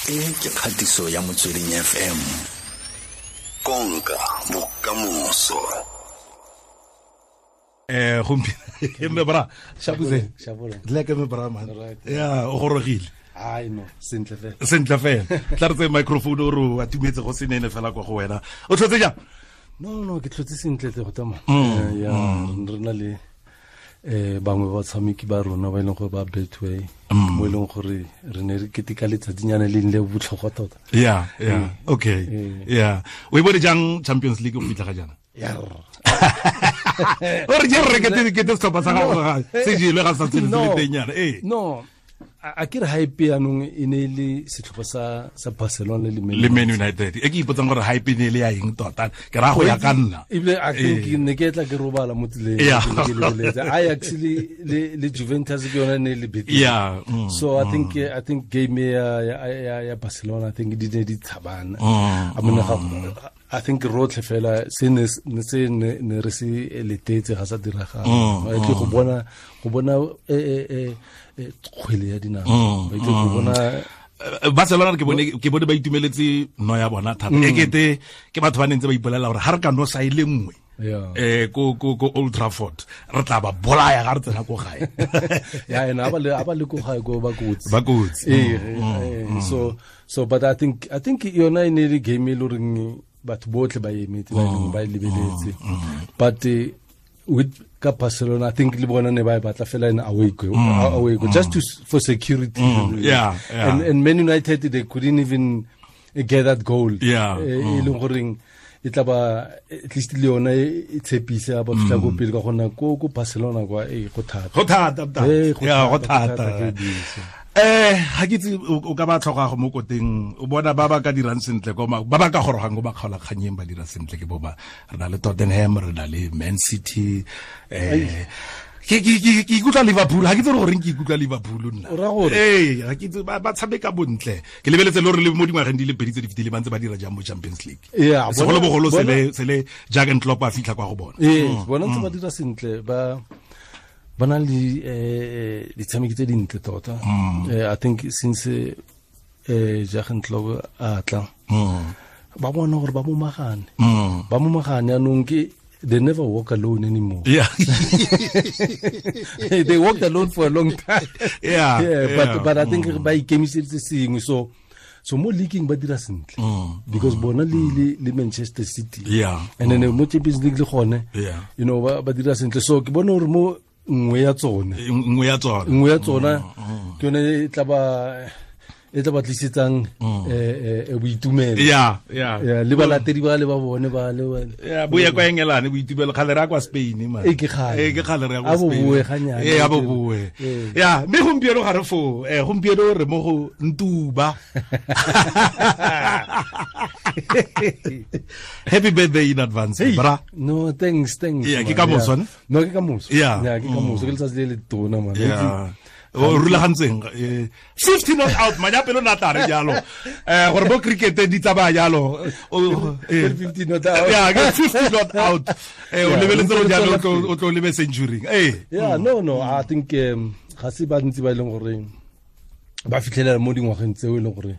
E ke kgatiso ya Motsweding FM. Konka bokamoso. Gompieno me bra shabuze dle ke me bra man. Ya o gorogile. Ai no, sentle fela. Sentle fela. Tla re tse microphone o re atumetse go senene fela kwa go wena. O tlhotse jang? No, ke tlhotse sentle tle go tsamaya. Ya re na le bangwe ba tshameki ba rona ba e leng gore ba Betway mo e leng gore re ne re keteka letsatsinyana le le botlhokwa tota. Yeah, yeah. Okay. Yeah. O e bone jang Champions League go fitlha ga jaana? Yeah. O re je re kete setlhopha sa gago se jelwe ga sa tsene se le teng yana. Eh. No. A ke re hype yanong e ne le setlhopha sa Barcelona le Man United. E ke ipotsang gore hype ne le ya eng tota. Ke ra go ya ka nna. Ebile I think ne ke tla ke robala mo tseleng ke lebeletse. Ajax le Juventus ke yona ne le beat. Yeah. So I think game ya Barcelona I think di ne di tshabana. I mean I think rotlhe fela se ne ne re se letetse ga sa diragala. Ba tle go bona kgwele ya dinao. Ba tle go bona Barcelona ke bone ba itumeletse no ya bona thata. E kete ke batho ba nentse ba ipolela gore ha re ka no sa ile nngwe. Ko Old Trafford re tla ba bolaya ga re tsena ko gae. Ya ena ba le ko gae ko ba kotsi. Ba kotsi. So but I think yona e ne le game e le goreng batho botlhe ba emetse ba leng ba lebeletse. But with ka Barcelona I think le bona ne ba batla fela in away go just to for security. Yeah. And Man United they couldn't even get that goal. Yeah. E leng goreng e tla ba at least le yona e tshepise ba fitla go pele ka gona ko Barcelona kwa e go thata. Go thata. Yeah, go thata. Ga ke itse o ka ba tlhoka go mo koteng o bona ba ba ka dirang sentle ko ba ba ka gorogang go ba kgaola kganyeng ba dira sentle ke bo ba re na le Tottenham re na le Man City ke ikutlwa Liverpool ga ke itse gore ke ikutlwa Liverpool nna ga ke itse ba tshameka bontle ke lebeletse le gore le mo dingwageng di le pedi tse di fetileng ba ntse ba dira jang mo Champions League segolobogolo sele Jurgen Klopp a fitlha kwa go bona bona ntse ba dira sentle ba ba na le ditshameki tse dintle tota. I think since Jurgen Klopp a tla ba bona gore ba momagane. Ba momagane anong ke they never walk alone anymore. Yeah. They walked alone for a long time. Yeah. But I think ba ikemiseditse sengwe so mo leaking ba dira sentle because bona le Manchester City. Yeah. And then mo Champions League le gone. Yeah. You know ba dira sentle so ke bona gore mo nngwe ya tsona ke yone e tla ba tlisetsang boitumelo. Yeah. Le balatedi ba le ba bone ba le yeah bo ya kwa Engelane boitumelo kgale re ya kwa Spain man. E ke kgale re ya kwa Spain. A bo boe ganyane. A bo boe. Yeah, mme gompieno ga re fo gompieno re mo go Ntuba. Happy birthday in advance, bra. No, thanks. Yeah, ke ka moso ne? No, ke ka moso. Yeah, ke ka moso ke letsatsi le le tona man. Yeah. O rulagantseng 50 not out manyapelo na tla re jalo gore bo cricket di tsamaya jalo 50 not out. Yeah, 50 not out. O lebeletse go jalo o tlo lebe century. Yeah, no, I think ga se ba ntse ba leng gore ba fitlhelela mo dingwageng tseo e leng gore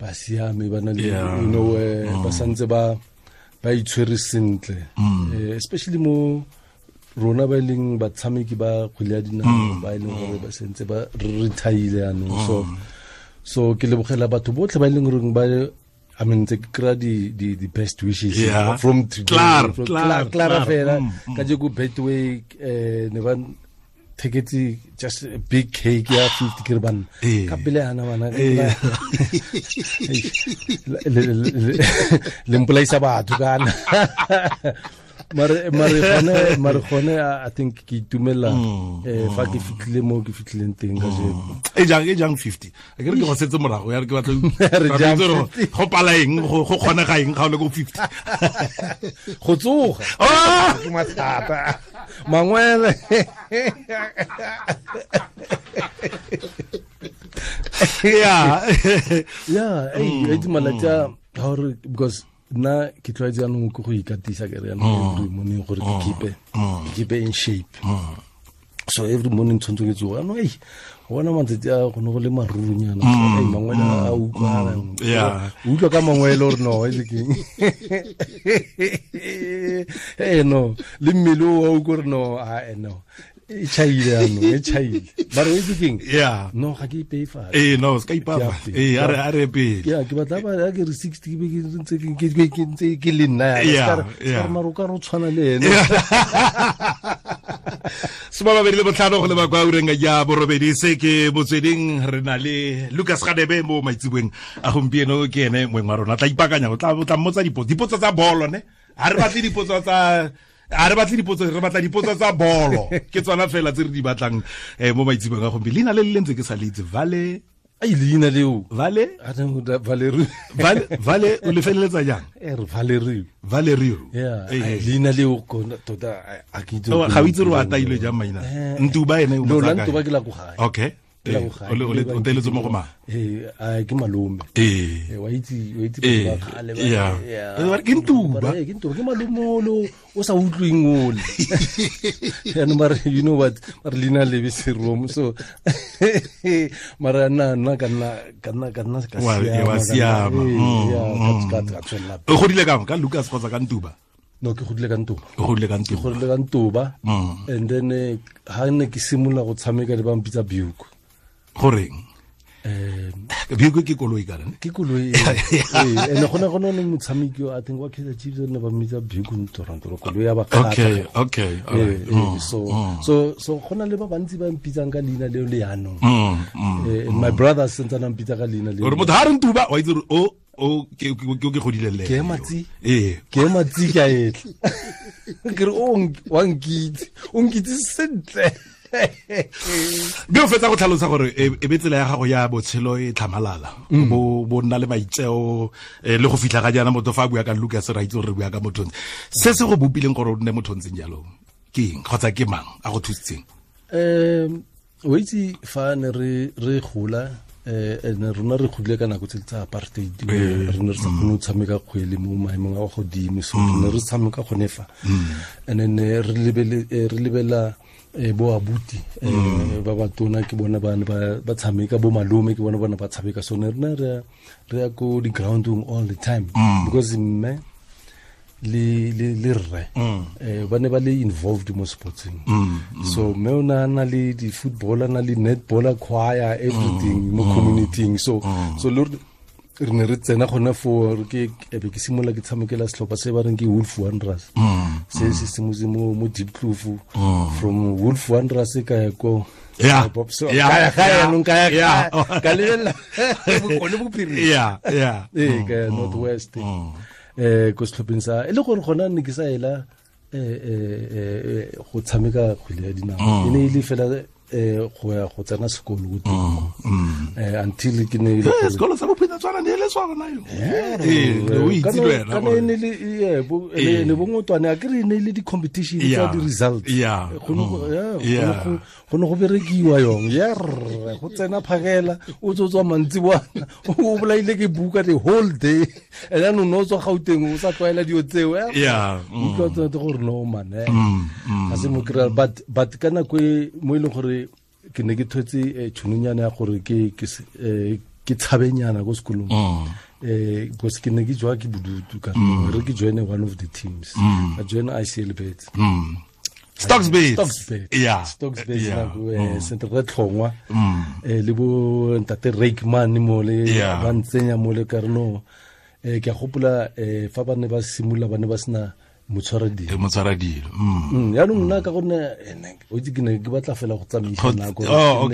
ba siame ba na le you know ba santse ba itshwere sentle especially mo rona ba leng batshameki ba kgwele ya dinao ba e leng gore ba sentse ba retire yanong so ke lebogela batho botlhe ba e leng gore ba I mean ke kry the best wishes from today Clara fela ka je go Betway ne ba theketse just a big cake ya 50 ke re bana ka pele yana bana le mpolaisa batho kana mare gone I think ke itumela fa ke fitlhile mo ke fitlhileng teng ka jeko. E jang 50 a ke re ke go setse morago ya re ke batla go pala eng go kgonega eng ga o le ko 50 go tsoga ke mathata mangwele. Yeah. Yeah, e malatsi a gore because nna ke tlwaetse yanong ke go ikatisa ke re yanong every morning gore ke keep in shape. So every morning tshwanetse ke tsoga no Bona matsatsi a go ne go le marurunyana mangwele a utlwala utlwa ka mangwele gore no e keng no le mmele o wa utlwa gore no a no e chaile ano e chaile ba re o itse keng no ga ke ipeye fatshe no se ka ipafa a re pele ya ke batla ba ke re 60 ke be ke ntse ke ntse ke le nna ya ka re maro ka re o tshwana le ene 25 go leba kwa ureng ya borobedi se ke Motsweding re na le Lucas Radebe mo maitseboeng a gompieno ke ene moeng wa rona tla ipakanya o tla mmotsa dipotso tsa bolo ne ha re batle dipotso tsa a re batle dipotso re batla dipotso tsa bolo ke tsona fela tse re di batlang mo maitseboeng a gompieno leina le le ntse ke sa le itse Vale ai leina leo Vale Valerio Vale o le feleletsa jang Valerio Valerio yeah leina leo tota a ke itse ga o itse re o ataile jang maina Ntuba ene o no la Ntuba ke la go gae okay o teletse mo go mang ke malome wa itse ba kgale ba ke Ntuba ke Ntuba ke malome olo o sa utlweng ole yaanong ba re you know what ba re leina lebe seromo so mara nna ka nna ka siama o godile kang ka Lucas kgotsa ka Ntuba? No ke godile ka Ntuba. O godile ka Ntuba. Ke godile ka Ntuba. And then ha ne ke simolola go tshameka le ba mpitsa Buick. Goreng? Buick ke koloi kana? Ke koloi. Ene gona gona ne motshameki I think wa Kaizer Chiefs ne ba mmitsa Buick Ntorantoro koloi ya ba kgatla. Okay. All right. So gona le ba bantsi ba mpitsang ka leina leo le yanong. My brother sentse na mpitsa ka leina leo. Gore motho ha re Ntuba wa itse o o ke godile le ke matsi ke matsi ka etla ke re o wa nkitse o nkitse sentle be o fetsa go tlhalosa gore e be tsela ya gago ya botshelo e tlhamalala bo nna le maitseo le go fitlha ga jaana motho fa a bua ka Lucas ra itse gore re bua ka motho se se go bopileng gore o nne motho ntseng jalo ke eng kgotsa ke mang a go thusitseng? O itse fa ne re gola ne rona re godile ka nako tse tsa apartheid re ne re sa kgone go tshameka kgwele mo maemong a godimo so re ne re tshameka gone fa and then re lebela bo abuti ba batona ke bona ba ne ba tshameka bo malome ke bona bona ba tshameka so ne rena re ya ko di groundong all the time because mme le rre ba ne ba le involved mo sportsing so mme o na na le di footballer na le netballer choir everything mo community so so le re ne re tsena gone fo ke be ke simolola ke tshamekela setlhopha se ba reng ke Wolf Wanderers se se simotse mo Diepkloof from Wolf Wanderers ka ya ko ka lebelela bokone bophirima ka ya North West ko setlhopheng sa e le gore gona ne ke sa ela go tshameka kgwele ya dinao e ne e le fela go ya go tsena sekolo ko teng until ke ne le sekolo sa bophina tswana ne le swana yo o itse le wena kana ne le ne bongotwane a ke re ne le di competition tsa di results go ne go berekiwa yong go tsena phakela o tswa mantsi bwana o bolaile ke buka the whole day and then o no tswa Gauteng o sa tlwaela dio tseo utlwa tsone gore no man ga se mo kry but ka nako e mo e leng gore ke ne ke thotse tšhononyana ya gore ke tshabenyana ko sekolong because ke ne ke jwa ke bodutu ka re ke joine one of the teams I join ICL Bets Stocks Bets yeah Stocks Bets nako sentle re tlhongwa le bo ntate Rakeman mo le ba ntsenya mo le ka re no ke a gopola fa ba ne ba simolola ba ne ba sena motshwaradilo yaanong nna ka gonne o itse ke ne ke batla fela go tsamaisa nako oh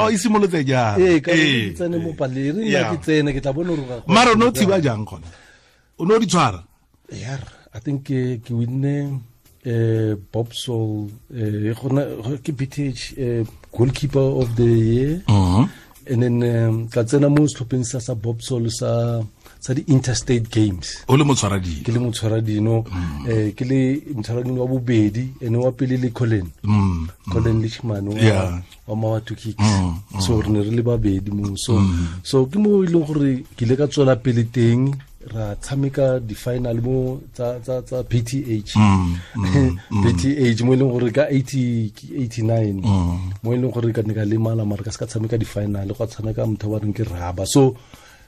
e simolotse jang ka ke tsene mo paleng re nna ke tsene ke tla bona gore mara o ne o thiba jang gona o ne o di tshwara I think ke winne Bob Sol ke BTH goalkeeper of the year and then ka tsena mo setlhopheng sa Bob Sol sa di interstate games o le motshwaradino ke le motshwaradino ke le motshwaradino wa bobedi ene wa pele le Colin Colin Lichman wa Mawatu Kicks so re ne re le babedi mo so so ke mo e leng gore ke ile ka tswela pele teng ra tshameka di final mo tsa PTH PTH mo leng gore ka 89 mo leng gore ka ne ka lemala mara ka se ka tshameka di final go tshameka motho ba reng ke Raba. So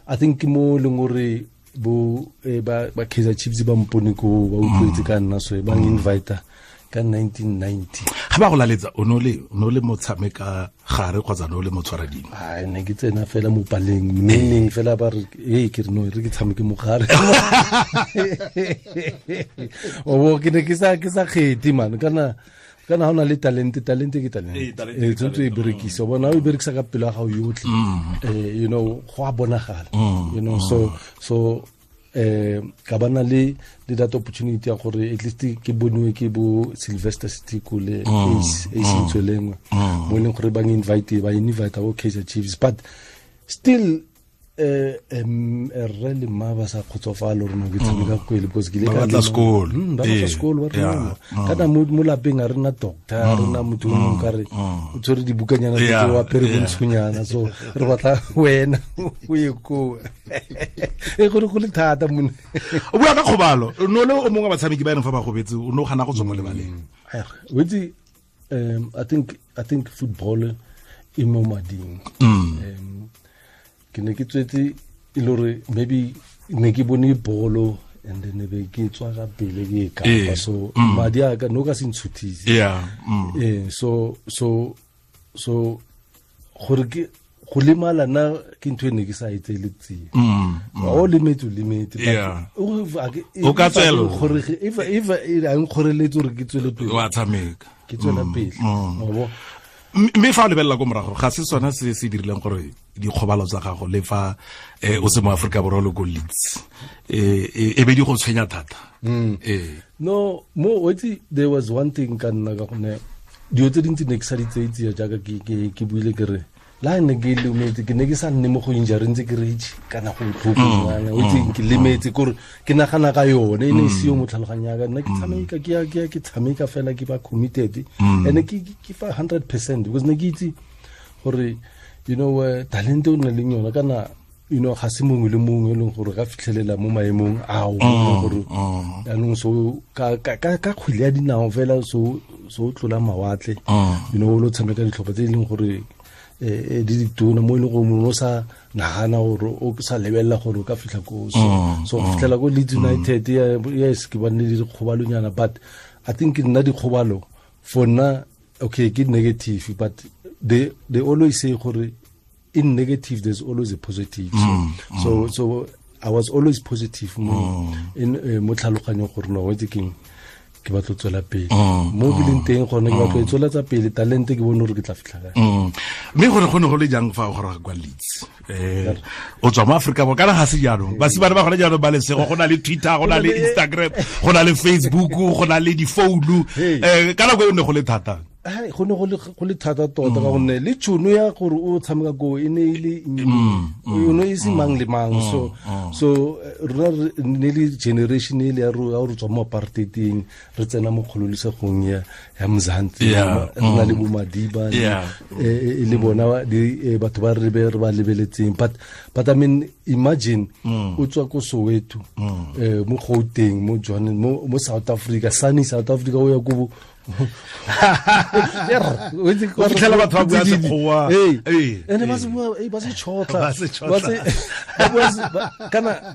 I think mo leng gore bo ba Kaizer Chiefs ba mpone ko ba utlwetse ka nna, so ba invite ka 1990. Ga ba go laletsa o no le motshameka gare kgotsa no le motshwaradimo? Ai, ne ke tsena fela mo paleng neng fela ba re e ke re no re ke tshameke mo gare. O ke ne ke sa kgethe man, kana ha ona le talente ke talente e tshwanetse e berekisa, bona o berekisa ka pelo ya gago yotlhe, you know, go a bonagala, you know. So ka bana le that opportunity ya gore at least ke boniwe ke bo Sylvester Sitiko le Ace Ntswelengwe mo leng gore ba invite bo Kaizer Chiefs, but still rre le mma ba sa kgotsofala gore no ke tshameka kgwele because ke le ka batla sekolo, ba batla sekolo, ba rena kana mo lapeng a rena doctor, a rena motho o mongwe ka re o tshwere dibukanyana tse wa apere bontshonyana, so re batla wena o ye koo. E gore go le thata mone. O bua ka kgobalo, no le o mongwe wa batshameki ba ene fa ba gobetse o no gana go tswa mo lebaleng. O itse, I think football e mo mading. Ke ne ke tswetse e le gore maybe ne ke bone bolo and then be ke tswa ka pele ke e kapa, so madi a ka no ka se ntshutise. So gore ke go lemala na ke ntho e ne ke sa e tsele tsie. O lemetse o ka tswela gore if a nkgoreletse gore ke tswele pele, wa tshameka, ke tswela pele. Mme fa o lebelela ko morago ga se sona se se dirileng gore dikgobalo tsa gago le fa o se mo Afrika Borwa le ko Leeds e be di go tshwenya thata? No, mo itse there was one thing ka nna ka gone dilo tse dintsi ne ke sa di tseye jaaka ke buile ke re la ne ke lemetse, ke ne ke sa nne mo go injury ntse ke re kana go botlhoko ngwana, o itse ke lemetse kore ke nagana ka yone e ne e seo mo tlhaloganyong ya ka. Nna ke tshameka ke tshameka fela ke ba committed and ke fa 100% because ne ke itse gore you know talente o na leng yona kana, you know, ga se mongwe le mongwe e leng gore ka fitlhelela mo maemong ao gore jaanong so ka kgwele ya dinao fela so o tlola mawatle, you know, o lo tshameka ditlhopha tse e leng gore di ditona mo e leng gore mongwe o sa nagana gore o sa lebelela gore o ka fitlha ko. So go fitlhela ko Leeds United, yes, ke bane le dikgobalonyana, but I think nna dikgobalo for nna okay ke negative, but they always say gore in negative there's always a positive. So I was always positive mo in mo tlhaloganyong gore no wetse keng ke batla tswela pele mo ke leng teng gone, ke batla tswela tsa pele talente ke bone gore ke tla fitlha kae. Mme gore go ne go le jang fa o goroga kwa Leeds? O tswa mo Afrika Borwa kana ga se jaanong basimane ba gone jaanong ba lesego, go na le Twitter, go na le Instagram, go na le Facebook, go na le difounu. Ka nako e ne go le thata? Go ne go le thata tota ka gonne le tšhono ya gore o tshameka ko e ne e le o ne e se mang le mang. So rona ne le generation e le ya re tswa mo apartheideng re tsena mo kgololesegong ya Mzansi, re na le bo Madiba le bona batho ba re ba lebeletseng, but I mean imagine o tswa ko Soweto, mo Gauteng, mo Johannesburg, mo South Africa, sunny South Africa, o ya ko o fitlhela batho ba bua Sekgowa. Ene ba se bua, ba se tšhotla,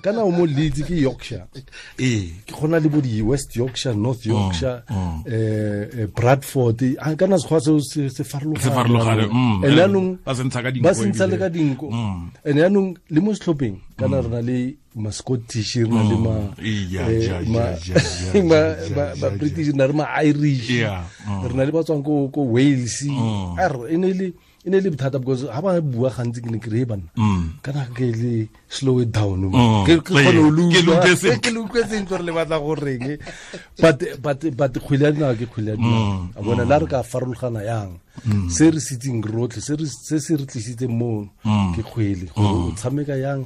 kana o mo Leeds ke Yorkshire, ke gona le bo di West Yorkshire, North Yorkshire, Bradford, kana Sekgowa seo se farologane. And yaanong ba se ntsha le ka dinko. And yaanong le mo setlhopheng kana re na le ma Scottish, re na le ma British, re na le ma Irish, re na le ba tswang ko Wales. E ne le bothata because ha ba bua gantsi ke ne ke re banna kana ke le slow it down, ke kgone ho ke le utlwe sentle gore le batla go reng, but kgwele ya dinao ke kgwele ya dinao. A bona la re ka farologana yang se re sitseng rotlhe, se se re tlisitseng mo ke kgwele gore o tshameka yang.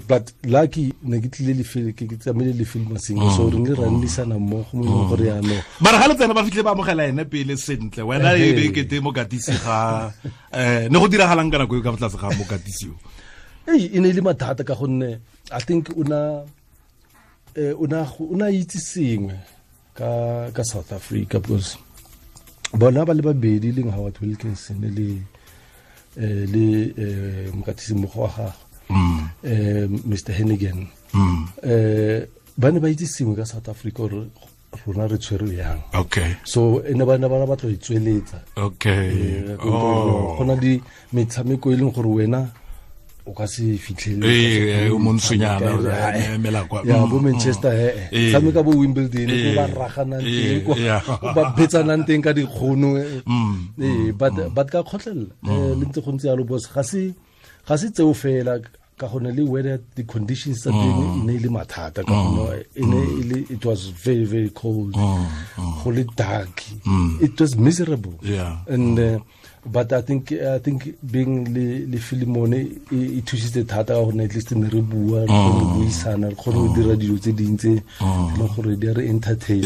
But lucky ne ke tlile le ke tsamaile le film Masinga, so re ne ra nnisana mmogo mo leng gore yaanong mara ga le tsena ba fitlhe ba amogela ene pele sentle, wena e be kete mokatisi ga ne go diragalang ka nako e ka fa tlase ga mokatisi yo? E ne e le mathata ka gonne I think una itse sengwe ka South Africa, because bona ba le babedi leng Howard Wilkinson le mokatisi mmogo wa gagwe Mr Hennigan, ba ne ba itse sengwe ka South Africa gore rona re tshwerwe yang. Okay. So ene ba ne ba batla go itsweletsa. Okay. Go na le metshameko e leng gore wena o ka se fitlhelele o montsonyana emela kwa ya bo Manchester tshameka bo Wimbledon ko ba raganang teng ko ba betsanang teng ka dikgono but ka kgotlelela le ntse go ntse yalo boss ga se tseo fela ka gone le weather the conditions tsa teng e ne e le mathata ka gone e ne e le it was very very cold, go le dark, it was miserable. Yeah. And but I think being le Filimone e thusitse thata ka gonne at least ne re bua, re kgone go buisana, re kgone go dira dilo tse dintsi le gore di re entertain.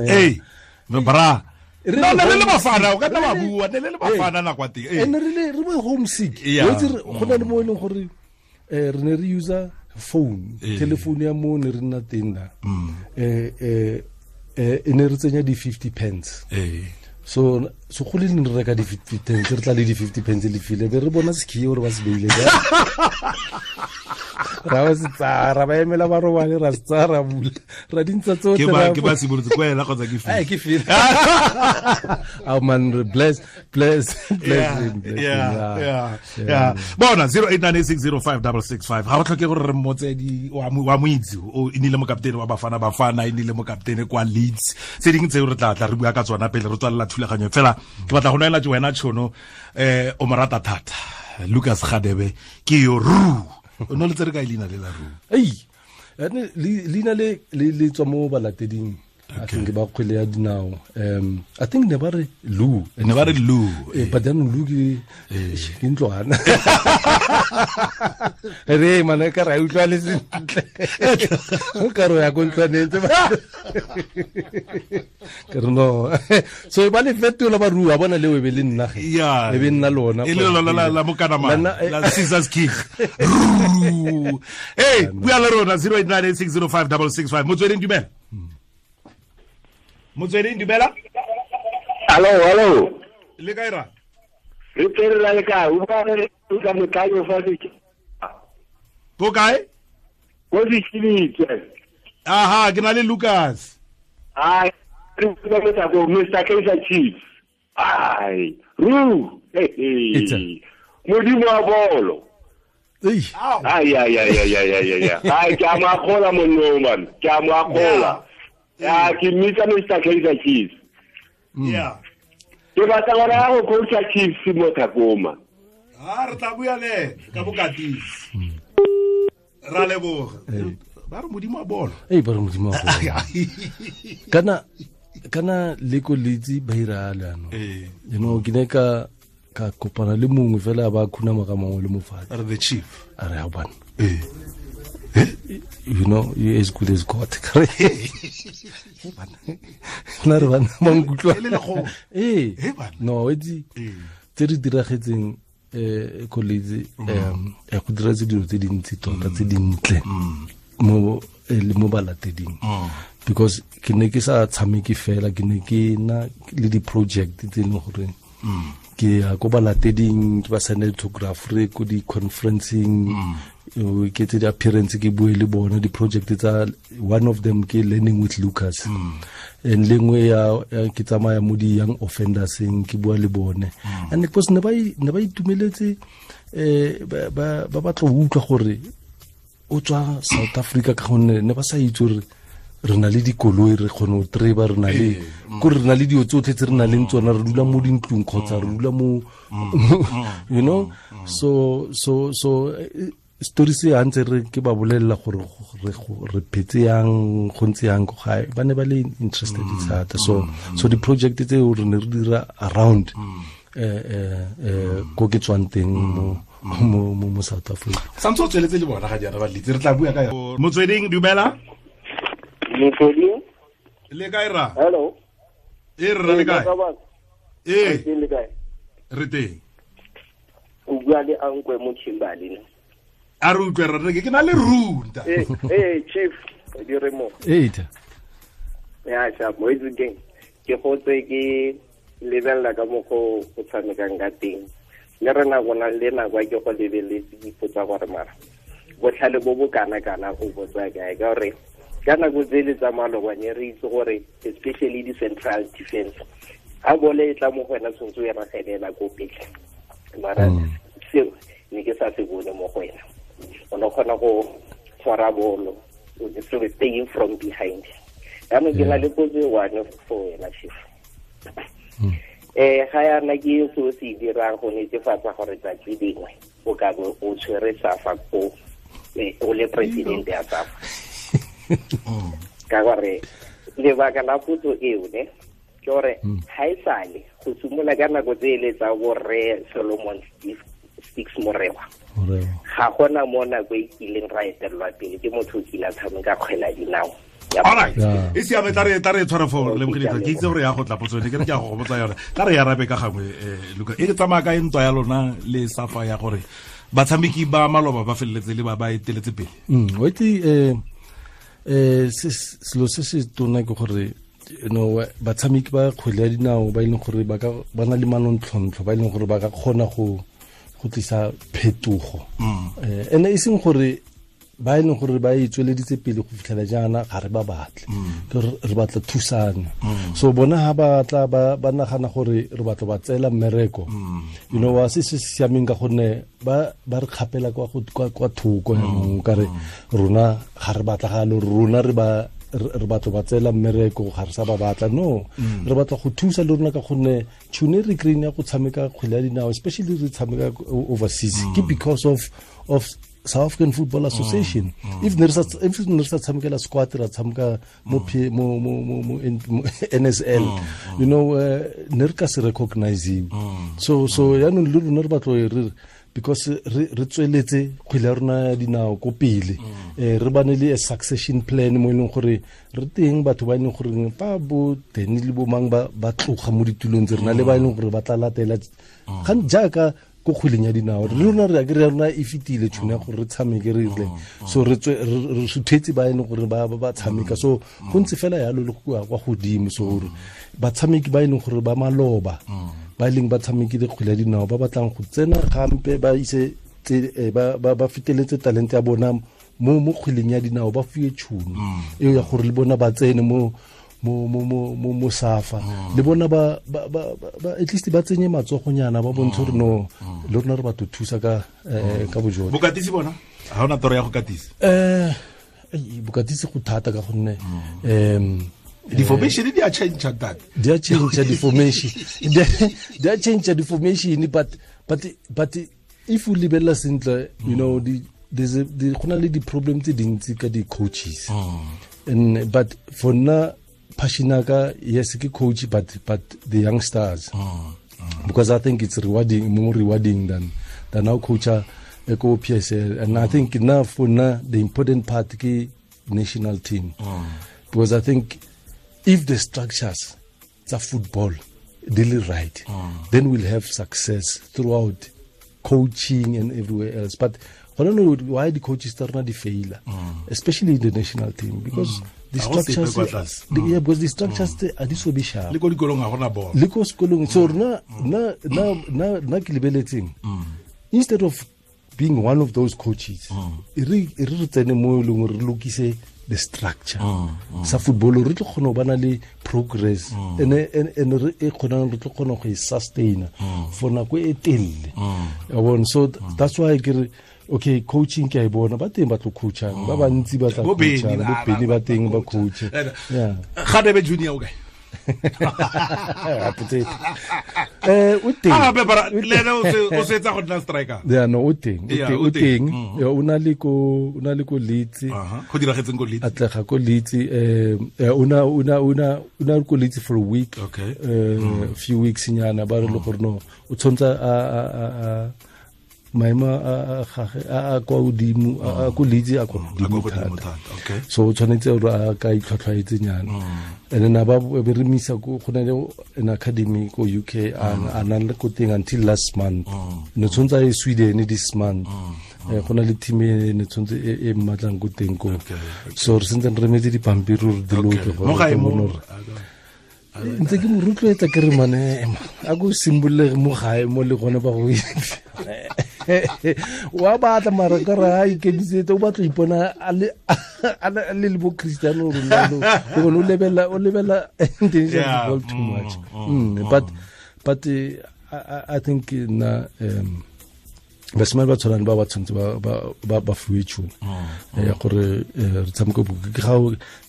Hey, bra. No, ne le bafana, o ka nna wa bua, ne le bafana nako teng. And re le bo homesick. Go na le mo e leng gore re ne re user phone, telephone ya mo ne re nna teng na. E ne re tsenya di 50 pence. So go le ne re reka di 50 pence, re tla le di 50 pence le file be re bona sekhiye gore ba se beile ka ra ba se tsaya, ba emela ba robale, ra se tsaya, ra bula, ra dintsa tsotlhe. Ke ba simolotse kwa ela kgotsa ke file? Ke file. Oh man, bless him. Yeah. Bona 0898605665. Ga o tlhoke gore re mmotse di wa moitse o inile mokaptene wa Bafana Bafana, inile mokaptene kwa Leeds. Tse dingwe tseo re tla re bua ka tsona pele re tswalela thulaganyo. Fela ke batla go neela wena tšhono, o mo rata thata Lucas Radebe ke yo ru. O no le tsere ka leina le la ru? Ei, leina le le tswa mo balateding. I think ba kgwele ya dinao. I think ne ba re Lu. Ne ba re Lu. But then Lu ke ntlwana. Re mana ka ra utlwa le sentle. O ka re ya go ntlwaneng tse ba. Ke re no. So ba le fetola ba rua bona le we be le nna ge. E be nna lona. E le lona la mokanama la Caesar's King. Hey, bua le rona 0898605665. Motsweding dumela. Motsweding dumela. Hello. Le kae ra? Re tere la le kae? O ka re o ka motlayo fa se. Ko kae? Ko Sechilitse. Aha, ke na le Lucas. Ai, re ka motla go Mr. Kaizer Chiefs. Ai, ru. Hey. Modimo wa bolo. Ai ai ai ai ai ai. Ai, ke a mo akgola monno man. Ke a mo akgola. Ya ke mmitsa Mr. Kaizer Chiefs. Yeah. Ke batla gore a go coacha Chiefs mo Thakoma. Ah, re tla bua le ka bokatisi. Ra leboga. Ba re modimo wa bolo. Ei, ba re modimo wa bolo. Kana le ko litsi ba ira le ano. You know, ke ne ka kopana le mongwe fela ba khuna ka mongwe le mofatsi. Are the chief. A re ha bana. You know, you as good as God. Na re bana ba nkutlwa. No, itse tse di diragetseng college go dira tse dilo tse dintsi tota tse dintle mo le mo balateding. Because ke ne ke sa tshameke fela, ke ne ke na le di project tse leng gore ke ya ko balateding, ke ba send photographer ko di conferencing, ke tse di appearance ke bue le bona di project tsa. One of them ke Learning with Lucas, and lengwe ya ke tsamaya mo di young offenders ke bua le bone. And because ne ba itumeletse ba batla go utlwa gore o tswa South Africa ka gonne ne ba sa itse gore re na le dikoloi, re kgone go treba, re na le ko re na le dilo tsotlhe tse re na leng tsona, re dula mo dintlong kgotsa re dula mo, you know. So story se a ntse re ke ba bolelela gore re phetse yang, go ntse yang ko gae, ba ne ba le interested thata. So di project tseo re ne re dira around ko ke tswang teng mo South Africa. Santse o tsweletse le bona ga jaana ba litse, re tla bua ka Motsweding dumela. Motsweding le kae ra? Hello. E rra le kae? Le kae? Re teng. O bua le Ankwe mo Kimberley. A re utlwe re ke na le runda. Chief di re mo. Ya cha mo itse ke go tse ke lebella ka mo go tshamekang ka teng. Le rena gona le nako ke go lebeletse dipotsa gore mara botlhale bo bo kana kana o botsa kae ka gore ka nako tse le tsa malobane re itse gore especially di central defense a bole e tla mo go wena tshwanetse o e ragelela ko pele mara seo ne ke sa se bone mo go wena o ne kgona go tshwara bolo o staying from behind jaanong ke na le potso e one for wena chief. Ga yana ke se o se dirang go netefatsa gore tsatsi dingwe o ka bo o tshwere SAFA ko o le president ya SAFA. Ka gore lebaka la potso eo ne ke gore ha e sale go simolola ka nako tse ele tsa borre Solomon Stix Morewa ga gona mo nako e kileng ra etelelwa pele ke motho o kile a tshameka kgwele ya dinao. All right. E siame tla re tshwara fo lebogile ke itse gore ya go tla potso ne ke re ke a go botsa yone. Tla re arabe ka gangwe Luka. E tsamaya ka ntwa ya lona le SAFA ya gore batshameki ba maloba ba feleletse le ba ba eteletse pele. O itse selo se se tona ke gore you know batshameki ba kgwele ya dinao ba e leng gore ba ka ba na le manontlhotlho ba e leng gore ba ka kgona go tlisa phetogo. Ene e seng gore ba e leng gore ba e tsweleditse pele go fitlhela jaana ga re ba batle re batla thusano. So bona ha ba tla ba nagana gore re batla ba tseela mmereko you know wa se se siameng ka gonne ba re kgapela kwa thoko jaanong ka re rona ga re batla ga lo rona re batla ba tseela mmereko ga re sa ba batla no re batla go thusa le rona ka gonne tšhono re kry-ing ya go tshameka kgwele ya dinao especially re tshameka overseas ke because of South African Football Association. If there is a tshamekela squad ra tshameka mo mo NSL you know ne re ka se recognize. So yaanong le rona re batlo re because re tsweletse kgwele ya rona ya dinao ko pele re bane le a succession plan mo e leng gore re teng batho ba e leng gore ba bo Danny le bo mang ba tloga mo ditulong tse rena le ba e leng gore ba tla latela jaaka ko kgweleng ya dinao re rona re akere rona e fetile tšhono ya gore re tshameke re rile so re suthetse ba e leng gore ba tshameka so go ntse fela yalo le go kwa godimo so gore batshameki ba e leng gore ba maloba ba e leng ba tshamekile kgwele ya dinao ba batlang go tsena gampe ba ise ba feteletse talente ya bona mo kgweleng ya dinao ba fiwe tšhono eo ya gore le bona ba tsene mo SAFA le bona ba at least ba tsenye matsogonyana ba bontshe gore no le rona re batho thusa ka bojone. Bokatisi bona ha ona toro ya go katisa? Bokatisi go thata ka gonne di-formation di a change that di a change di-formation di a change di-formation but if o lebella sentle you know there's go na le di-problem tse dintsi ka di-coaches and but for nna passion ka yes ke coach but the youngsters because I think it's rewarding, more rewarding than our coach ko PSL and I think now for now the important part ke national team because I think if the structures tsa football really right then we'll have success throughout coaching and everywhere else. But I don't know why the coaches are not the failure, especially in the national team, because the structures, because the structures are this so sharp. Le ko dikolong ha gona bolo. Le ko sekolong so na ke lebeletseng. Instead of being one of those coaches, re tsene mo e leng re lokise the structure. Sa football re tlo kgona go bana le progress and re e kgonang re tlo kgona go e sustain for nako e telele. So that's why ke re okay, coaching ke a e bona ba teng ba tlo coachang ba bantsi ba tla coachang bo Benny ba teng ba coach. Yeah. Gadebe Junior o kae? O teng. Ah be bara le ene o setsa go nna striker. Yeah, no o teng. O teng. O na le ko Leeds. Go diragetseng ko Leeds. Atlega ko Leeds o na ko Leeds for a week. Okay. Few weeks nyana ba re le gore no o tshwantsa a maemo a gage a kwa godimo a ko Leeds a kwa godimo thata. Okay. So o tshwanetse gore a ka itlhwatlhwaetse nyana. And then ba be re misa ko go na le an academy ko UK a na le ko teng until last month. No tshwantsa e Sweden this month. Go na le team e ne tshwanetse e mmatlang ko teng ko. So re sentse re remetse dipampiri gore di loke gore mo gae mo ntse ke mo rotloetsa ke re mane a ko simbolege mo gae mo le gone ba go wa batla mara ka re a ikemisetse o batla ipona a le le bo Cristiano Ronaldo o lebella international football too much. But I think na basimane ba tshwanang ba ba tshwanetse ba fiwe tšhono ya gore re tshameke ke ga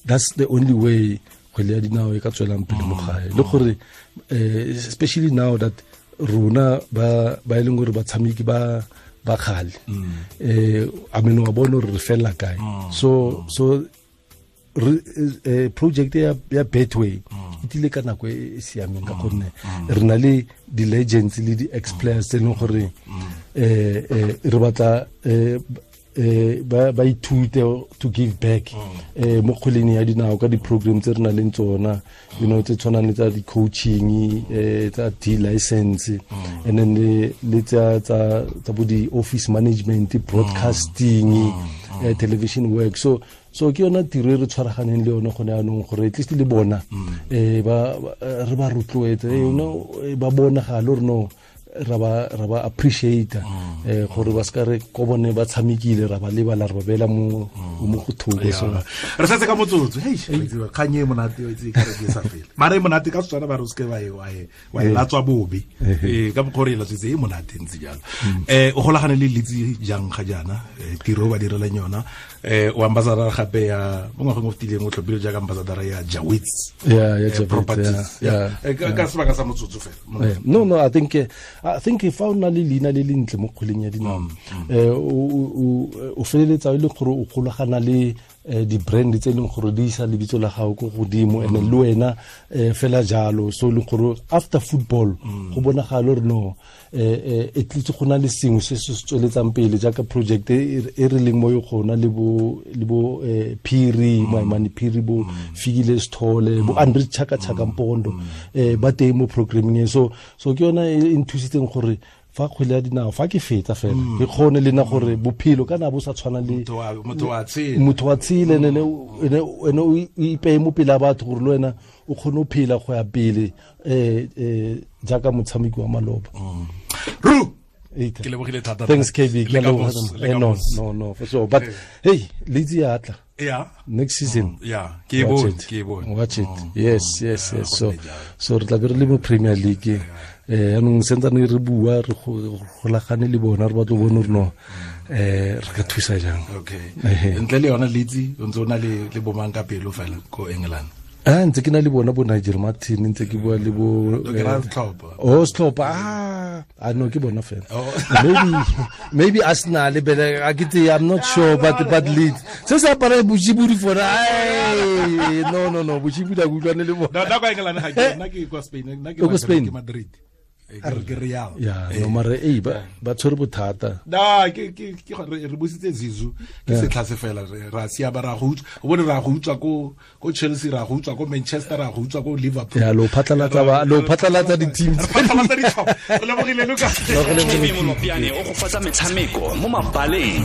that's the only way kgwele ya dinao e ka tswelang pele mo gae le gore especially now that rona ba e leng gore batshameki ba kgale I mean wa bona gore re fela kae so project ya Betway e tlile ka nako e siameng ka gonne re na le di-legends le di-ex players tse e leng gore re batla ba ithute to give back mo kgweleng ya dinao ka di-program tse re nang le tsona, you know, tse tshwanang le tsa di-coaching, tsa D-license, and then le tsa bo di-office management, broadcasting, television work. So ke yona tiro e re tshwaraganeng le yone gone yanong gore at least le bona re ba rotloetse, you know, ba bonagale gore no ra ba appreciate gore ba ska re ko bone ba tshamekile ra ba lebala re ba bela mo mo go thoko. So re setse ka motsotso hey kganye e monate o itse ka re ke sa fela mara e monate ka Setswana ba re o seke wa e latswa bobe ka mokgwa re e latswetse e monate ntse jalo. O golagane le Leeds jang ga jaana tiro ba direlang yona o ambassador gape ya mo ngwageng o fetileng o tlhophile jaaka ambassador ya Jawits properties ka sebaka sa motsotso fela. No I think fa o na le leina le lentle mo kgweleng ya dinao o feleletsa e le gore o golagana le di-brand tse e leng gore di isa lebitso la gago ko godimo and le wena fela jalo. So e leng gore after football go bonagala gore no at least go na le sengwe se se tsweletsang pele jaaka project e re leng mo yona le bo Phiri Maimane Phiri bo Fikile Sithole bo Andre Chaka Chaka Mpondo ba teng mo programming e. So ke yona e nthusitseng gore fa kgwele ya dinao fa ke fetsa fela ke kgone le na gore bophelo kana bo sa tshwana le motho wa tshele ene o ipeye mo pele a batho gore le wena o kgone go phela go ya pele jaaka motshameki wa maloba. Ru ke lebogile thata. Thanks KB. No for sure. But hey, Leeds ya tla. Yeah. Next season. Yeah. Ke bone. Watch it. Yes. So re tla be re le mo Premier League. Anong sentsane re bua re golagane le bona re batlo bone gore no re ka thusa jang. Okay. Ntle le yona Leeds o ntse o na le bomang ka pelo fela ko England. Ntse ke na le bona bo Nigel Martin, ntse ke bua le bo Setlhopha. No ke bona fela. Maybe Arsenal bele a ke tse, I'm not sure but Leeds. Se se apara boshibudi for no boshibudi a utlwane le bona. Na kwa England ga ke nna ke kwa Spain, nna ke Madrid. Ke Real. Yeah, no mare ba tshwere bothata. Na ke re busitse Zizou ke setlha se fela ra sia ba ra go utswa. O bone ra go utswa ko Chelsea, ra go utswa ko Manchester, ra go utswa ko Liverpool. Yeah, lo phatlalatsa di-teams. Phatlalatsa ditlhopha. Re lebogile Lucas. KB Molopyane o go fatsa metshameko mo mabaleng.